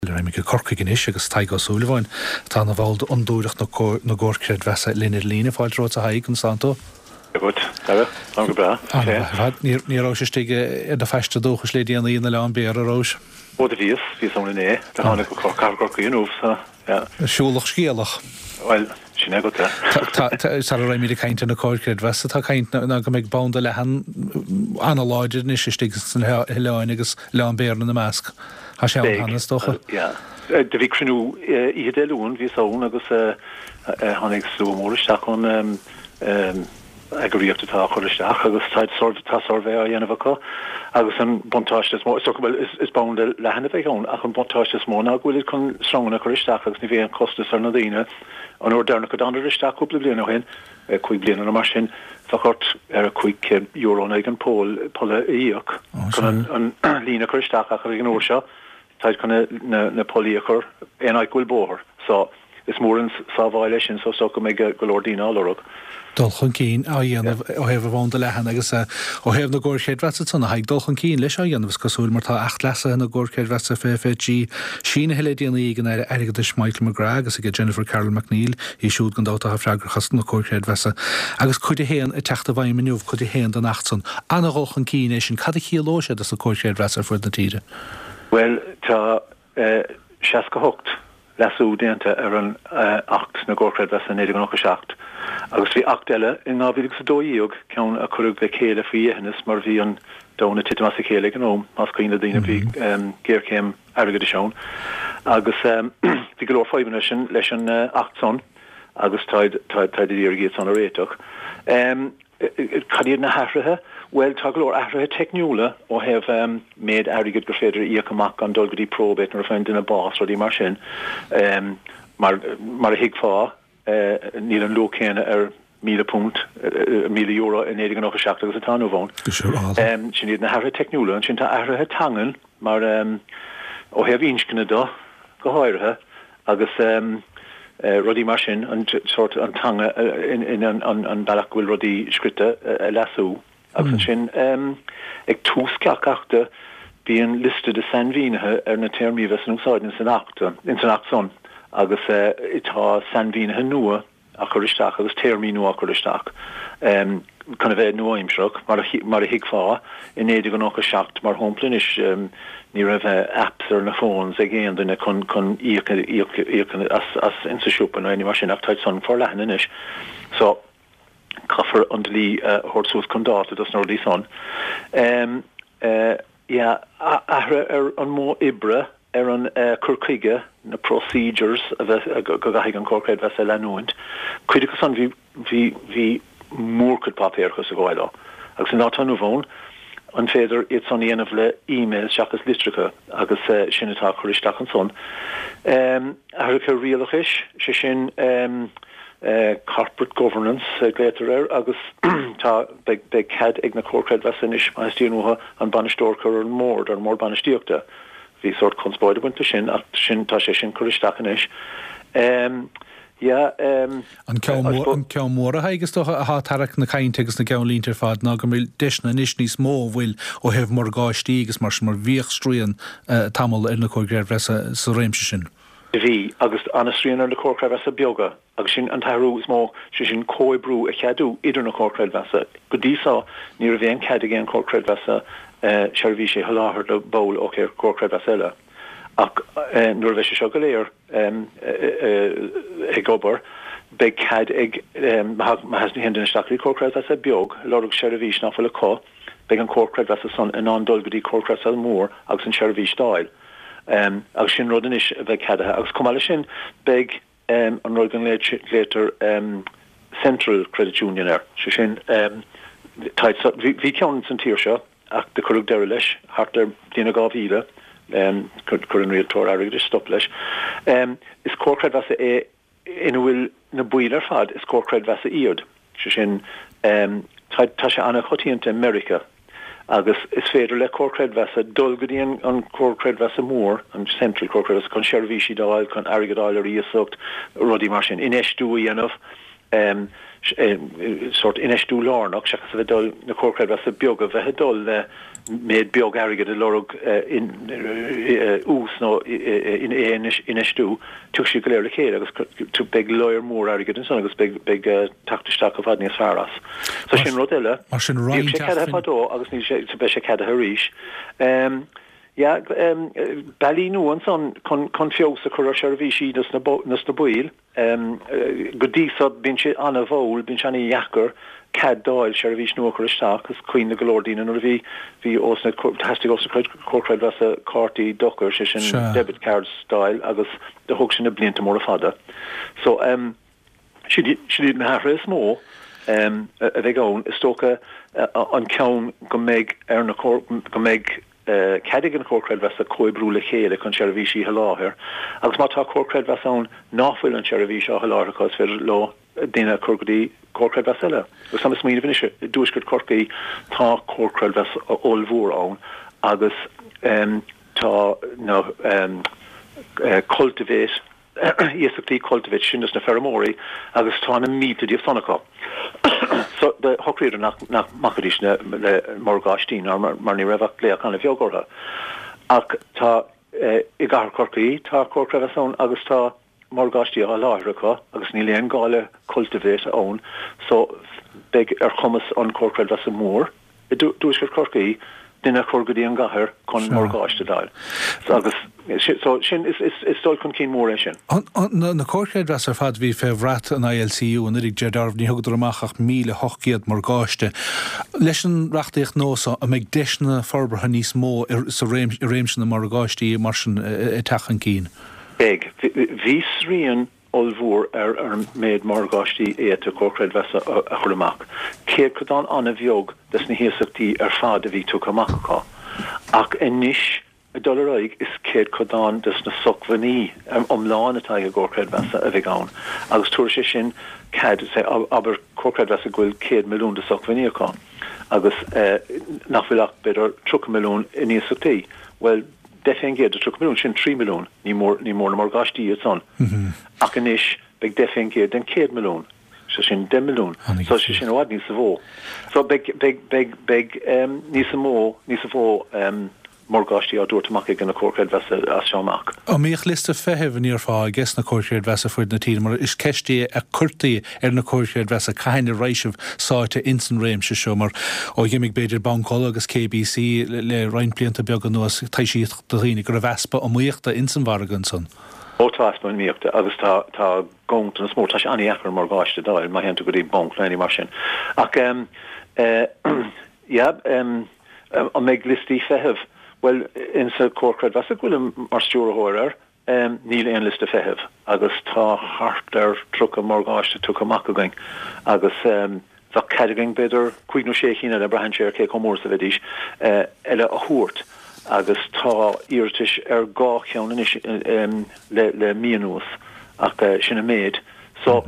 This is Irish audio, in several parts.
Raghaimid go Corcaigh anois agus Tadhg Ó Súilleabháin, atá ina bhall d'Fhondúireacht na gComhar Creidmheasa linn ar líne. Fáilte romhat a Thaidhg, conas tánn tú? Dia dhuit, Dara. Táim go breá. An-mhaith ar fad. Ní rabhais istigh ar do phaiste dúchais le déanaí in Oileán Béara, rabhais? Ó do bhíos, bhíos ann inné. Do tháinig go Cathair Chorcaí inniu, so, yeah. Siúlach scéalach. Bhuel, sin é agat é. Tá, sara raghaimid ag caint ar na comhair creidmheasa, tá caint ná go mbeidh banda leathan an-láidir anois istigh sna hoileáin agus Oileán Béara ina measc. Tá sé ann cheana, is dócha. Yeah. Do bhí cruinniú oíche Dé Luain, bhíos ann agus tháinig slua mór isteach ón eagraíocht atá á chur isteach agus tá tá suirbhé á dhéanamh acu agus an buntáiste is mó, is dócha, bhuel, is banda leathan a bheidh ann ach an buntáiste is mó ná go bhfuilid chun sreanganna a chur isteach agus ní bheidh aon chostas ar na daoine. An uair deireanach a dtánadar isteach cúpla bliain ó shin, 5 bliana nó mar sin, bheadh ort ar €500 in aghaidh an pole, polla a íoc chun an líne a chur isteach ach ag an uair seo táid chun na pollaí a chur aon áit go bhfuil bóthar. So, is mór an sábháil é sin so is dócha go mbeidh go leor daoine á lorg. Dul chun cinn á dhéanamh ó thaobh an bhanda leathan agus ó thaobh na gcomhar creidmheasa ansan, a Thaidhg, dul chun cinn leis á dhéanamh is cosúil mar tá Acht Leasaithe na gComhar Creidmheasa 2023 sínithe le déanaí ag an Aire Airgeadais Michael McGrath agus ag Jennifer Carroll MacNeill, í siúd gan dabht atá freagrach as na comhair chreidmheasa, agus Cuid 1 ag teacht i bhfeidhm inniu, Cuid 1 den Acht san. Ana-dhul chun cinn é sin. Cad a chiallóidh sé dos na comhair chreidmheasa ar fud na tíre? Bhuel, tá 68 leasú déanta ar an Acht na gComhar Creidmheasa 1997 agus bhí Acht eile in 2012, ceann a cuireadh le chéile faoi dheithneas mar bhí an domhan ag titim as a chéile ag an am, más cuimhin le daoine, bhí géarchéim airgeadais ann agus bhí go leor fadhbanna leis an Acht san agus táid ag iarraidh iad san a réiteach. Cad iad na hathruithe? Bhuel, tá go leor athruithe teicniúla ó thaobh méid airgid gur féidir a íoc amach gan dul go dtí probate nuair a faigheann duine bás, rudaí mar sin. Mar mar a thuigfeá, níl an luach céanna ar £1,000, €1,000 i 1997 agus atá inniu ann. Sin iad na hathruithe teicniúla. Ansin tá athruithe teangan mar ó thaobh inscne de go háirithe. agus rudaí mar sin, an sórt, an teanga in an bealach go bhfuil rudaí scrite a leasú. Agus ansin ag tús gach achta bíonn liosta de sainmhínithe ar na téarmaí a bheas in úsáid ins an Acht, ins an Acht san agus tá sainmhínithe nua á chur isteach agus téarmaí nua á chur isteach chun a bheith nua-aimsearach, mar a thuigfeá. I 1997, mar shampla anois, ní raibh apps ar na phones ag aon duine chun chun íoc íoc íoc as as insa siopa nó aon ní mar sin ach táid san forleathan anois. So, caithfear an dlí a thabhairt suas chun dáta dos na rudaí san. Yeah, athruithe ar an modh oibre, ar an cur chuige, na procedures a bheith, go gcaithfidh an Comhar Creidmheasa a leanúint. Cuid acu san bhí, bhí, bhí mórchuid páipéarachas ag gabháil leo. Agus an lá atá inniu ann, an féidir iad san a dhéanamh le emails seachas litreacha agus sin atá á chur isteach ansan. Athruithe rialachais, sé sin, corporate governance a ghlaotar air agus tá, beidh, beidh cead ag na Comhair Creidmheasa anois, má theastaíonn uathu, an bainisteoir a chur ar an mbord, ar an mbord bainistíochta. Bhí sórt conspóid ag baint leis sin ach sin, tá sé sin curtha isteach anois. Yeah, An ceann mór, an ceann mór a Thaidhg, is dócha, atá ag tarrac na cainte agus na gceannlínte ar fad ná go mbeidh deiseanna anois níos mó a bhfuil ó thaobh morgáistí agus mar sin mar bhíodh srian tamall ar na Comhair Creidmheasa sa réimse sin. Bhí, agus an-srian ar na Comhair Creidmheasa beaga, agus sin an t-athrú is mó, sé sin comhoibriú a cheadú idir na Comhair Creidmheasa. Go dtí so, ní raibh aon cead ag aon Chomhar Creidmheasa seirbhísí a sholáthar do bhall ó Chomhar Creidmheasa eile. Ach nuair a bheidh sé seo go léir ag obair, beidh cead ag, má théann duine isteach go dtí Comhar Creidmheasa beag, ag lorg seirbhís nach bhfuil acu, beidh an Comhar Creidmheasa san in ann dul go dtí Comhar Creidmheasa mór agus an tseirbhís d'fháil. Agus sin rud anois a bheidh ceadaithe. Agus chomh maith leis sin, beidh an rud go nglaotar Central Credit Union air, sé sin, bhí ceann san tír seo ach do cuireadh deireadh leis thart ar bhliain a 2000, chuir an rialtóir airgeadais stop leis. Is comhar creidmheasa é ina bhfuil na baill ar fad, is comhar creidmheasa iad, sé sin, tá, tá sé an-choitianta i Meiriceá agus is féidir le comhar creidmheasa dul go dtí an, an comhar creidmheasa mór, an central comhar creidmheasa, chun seirbhísí d'fháil, chun airgead a fháil ar iasacht, rudaí mar sin, infheistiú a dhéanamh. Sórt infheistiú lárnach, seachas a bheith ag dul, na comhair chreidmheasa beaga a bheith ag dul le méid beag airgid ag lorg ús nó infheistiú, tiocfaidh siad go léir le chéile agus beidh lear mór airgid ansan agus beidh teacht isteach i bhfad níos fearr as. So sin rud eile. Mar sin Bhíodh sé ceadaithe fadó agus níl sé, beidh sé ceadaithe arís. Yeah, bealaí nua ansan chun feabhas a chur ar sheirbhísí dos na baill. Go dtí so, bíonn sé an-mhall, bíonn sé an-dheacair cead d'fháil seirbhís nua a chur isteach. Is cuimhin le go leor daoine nuair a bhí, bhí ós na, theastaigh ós na comhair chreidmheasa cártaí dochair, sé sin debit cards d'fháil agus do thóg sin na blianta móra fada. So, sin iad na hathruithe is mó a bheidh ann. Is dócha an ceann go mbeidh ar na, go mbeidh, cead ag an Chomhar Creidmheasa comhoibriú le chéile chun seirbhísí a sholáthar agus má tá Comhar Creidmheasa ann ná fuil an tseirbhís á sholáthar acu is féidir leo daoine a chur go dtí Comhar Creidmheasa eile. Agus táim ag smaoineamh anois, i dTuaisceart Chorcaí tá Comhar Creidmheasa ollmhór ann agus tá na Cultivate, iasachtaí Cultivate sin dos na feirmeoirí agus tá na mílte díobh san acu. So do shocraíodar nach nach mbacaidís le le morgáistí ná mar ní raibh ach glaoch an-bheag orthu. Ach tá i gcathair Chorcaí tá Comhar Creidmheasa ann agus tá morgáistí á sholáthar acu agus níl aon gá le Cultivate ann so beidh ar chumas an Comhar Creidmheasa mór i dTuaisceart Chorcaí duine a chur go dtí an gcathair chun morgáiste d'fháil. Agus so sin, is dul chun cinn mór é sin. Na comhair chreidmheasa ar fad a bhí fé bhrat an ILCU anuraidh, Ger Darmh, ní thugadar amach ach 1,800 morgáiste. Leis an reachtaíocht nua so, an mbeidh deiseanna forbartha níos mó sa i réimse na morgáistí mar sin ag teacht chun cinn? Beidh. Bhí srian ollmhór ar an méid morgáistí a d'fhéadfadh comhar creidmheasa a chur amach. Céadchodán an-bheag des na hiasachtaí ar fad a bhí tugtha amach acu. Ach anois, ag dul ar aghaidh, is céadchodán des na socmhainní iomlán atá ag an gcomhar creidmheasa a bheidh ann. Agus tabharfaidh sé sin cead, say, abair comhar creidmheasa go bhfuil 100 milliún de socmhainní acu agus nach bhfuil ach b'fhéidir 30 milliún in iasachtaí. Bhuel, 10% de 30 milliún, sin 3 milliún, ní mór, ní mór na morgáistí iad san. Ach anois beidh 10% den 100 milliún, sé sin 10 milliún, so sé sin i bhfad níosa mhó. So beidh, beidh, beidh, beidh níosa mó, níosa mhó morgáistí á dtabhairt amach ag na comhair chreidmheasa as seo amach. An mbíodh liosta feithimh, an ndéarfá, ages na comhair chreidmheasa fuaid na tíre, mar is ceist í a cuirtí ar na comhair chreidmheasa cathain a raibh sibh sáite ins an réimse seo mar ó dh'imigh b'fhéidir Banc Uladh agus KBC le roinnt blianta beaga anuas taibhsíodh do dhaoine go raibh easpa iomaíochta ins an mhargadh ansan. Ó tá easpa iomaíochta agus tá tá ganntanas mór, tá sé an-dheacair morgáiste d'fháil má théann tú go dtí banc nó aon ní mar sin. Ach em eh yeah em an mbeidh liostaí feithimh? Bhuel insa Comhar Creidmheasa go bhfuilim mar stiúrthóir air, Níl aon liosta feithimh agus tá thart ar 30 morgáiste tugtha amach againn agus bheadh cead againn b'fhéidir cúig nó sé chinn eile, braitheann sé ar cé chomh mór is a bheidís, eile a thabhairt agus tá iarratais ar dhá cheann anois le mí anuas ach sin an méid. So.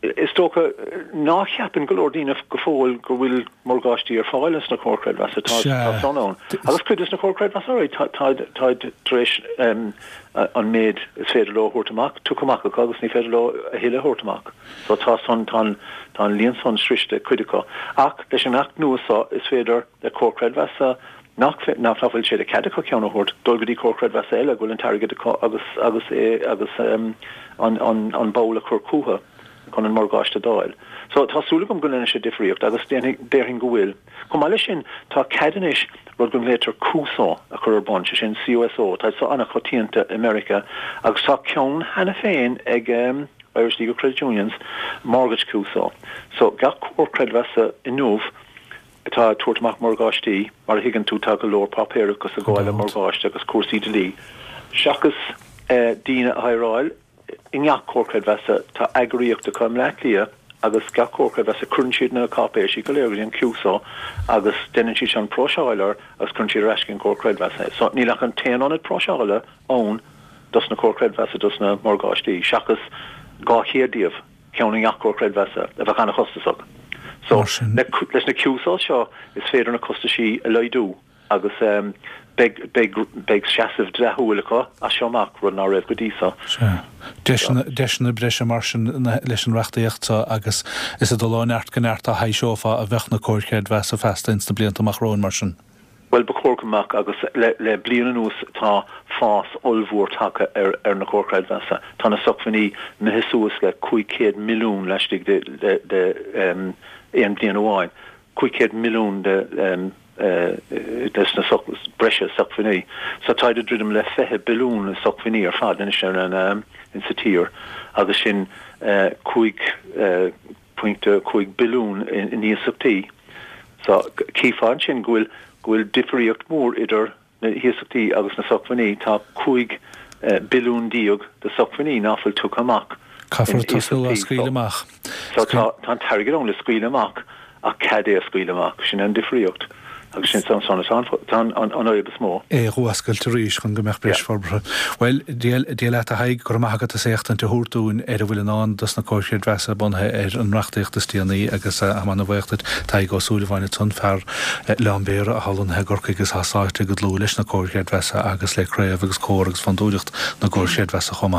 Is dócha ná ceapann go leor daoine go fóill go bhfuil morgáistí ar fáil ins na comhair chreidmheasa. Tá Tá san ann. Agus cuid des na comhair chreidmheasa táid táid tar éis an méid is féidir leo a thabhairt amach tugtha amach acu agus ní féidir leo a thuilleadh a thabhairt amach. So tá san tá an tá an líon san sroiste ag cuid acu. Ach leis an Acht nua so is féidir le comhar creidmheasa nach nach bhfuil sé de chead acu ceann a thabhairt, dul go dtí comhar creidmheasa eile go bhfuil an t-airgead acu agus agus é agus an an an ball a chur chucu chun an morgáiste d'fháil. So tá súil agam go ndéanfaidh sé difríocht agus déanfaidh déarfainn go bhfuil. Chomh maith leis sin tá cead anois rud go nglaoitear CUSO a chur ar bun, sé sin CUSO, tá so an-choitianta i Meiriceá agus tá ceann cheana féin ag Irish League of Credit Unions, Mortgage CUSO. So gach comhar creidmheasa inniu atá ag tabhairt amach morgáistí, mar a thuigeann tú tá go leor páipéarachas ag gabháil le morgáiste agus cúrsaí dlí. Seachas daoine a hireáil i ngach comhar creidmheasa, tá eagraíocht acu i mBleá Cliath agus gach comhar creidmheasa cuireann siad na cáipéisí go léir go dtí an CUSO agus déanann siad sin próiseáil air agus cuireann siad ar ais chuig an gcomhar creidmheasa é. So níl ach an t-aon ionad próiseála ann dos na comhair chreidmheasa dos na morgáistí seachas 200 díobh. ceann i ngach comhar creidmheasa, a bheadh an-chostasach. So, leis na CUSOs seo, is féidir na costaisí a laghdú agus beidh, beidh, beidh seasamh dleathúil acu as seo amach, rud ná raibh go dtí seo. Sea. Deiseanna breise mar sin leis an reachtaíocht seo agus is ag dul ó neart go neart a thaibhseofá a bheadh na comhair chreidmheasa feasta ins na blianta amach romhainn mar sin. Bhuel, ba chóir go mbeadh agus le bliain anuas tá fás ollmhór tagtha ar na comhair chreidmheasa. Tá na socmhainní imithe suas le 500 milliún laistigh de aon bhliain amháin. 500 milliún de des na breise socmhainní. So táid ag druidim le 20 billiún socmhainní ar fad anois ar an insa tír agus sin 5.5 billiún in iasachtaí. So chífeá ansin go bhfuil go bhfuil difríocht mhór idir na hiasachtaí agus na socmhainní. Tá 15 billiún de socmhainní ná fuil tugtha amach in Caithfear tosnú á iasachtaí. scaoileadh amach. So tá an t-airgead ann le scaoileadh amach ach cead é a scaoileadh amach. Sin é an difríocht agus sin san atá an fhadhb is mó. é a dh'fhuascailt arís chun go mbeadh breis forbartha. Bhuel, Dia Dia leat a Thaidhg, go raibh maith agat as éachtaint a thabhairt dúinn ar a bhfuil i ndán dos na comhair chreidmheasa bunaithe ar an reachtaíocht is déanaí agus tá mé ana-bhuíoch duit. Tadhg Ó Súilleabháin ansan, fear Oileán Béarra atá lonnaithe i gCorcaigh agus atá sáite go dlúth leis na comhair chreidmheasa agus le craobh agus comhar agus fondúireacht na gcomhar chreidmheasa chomh maith.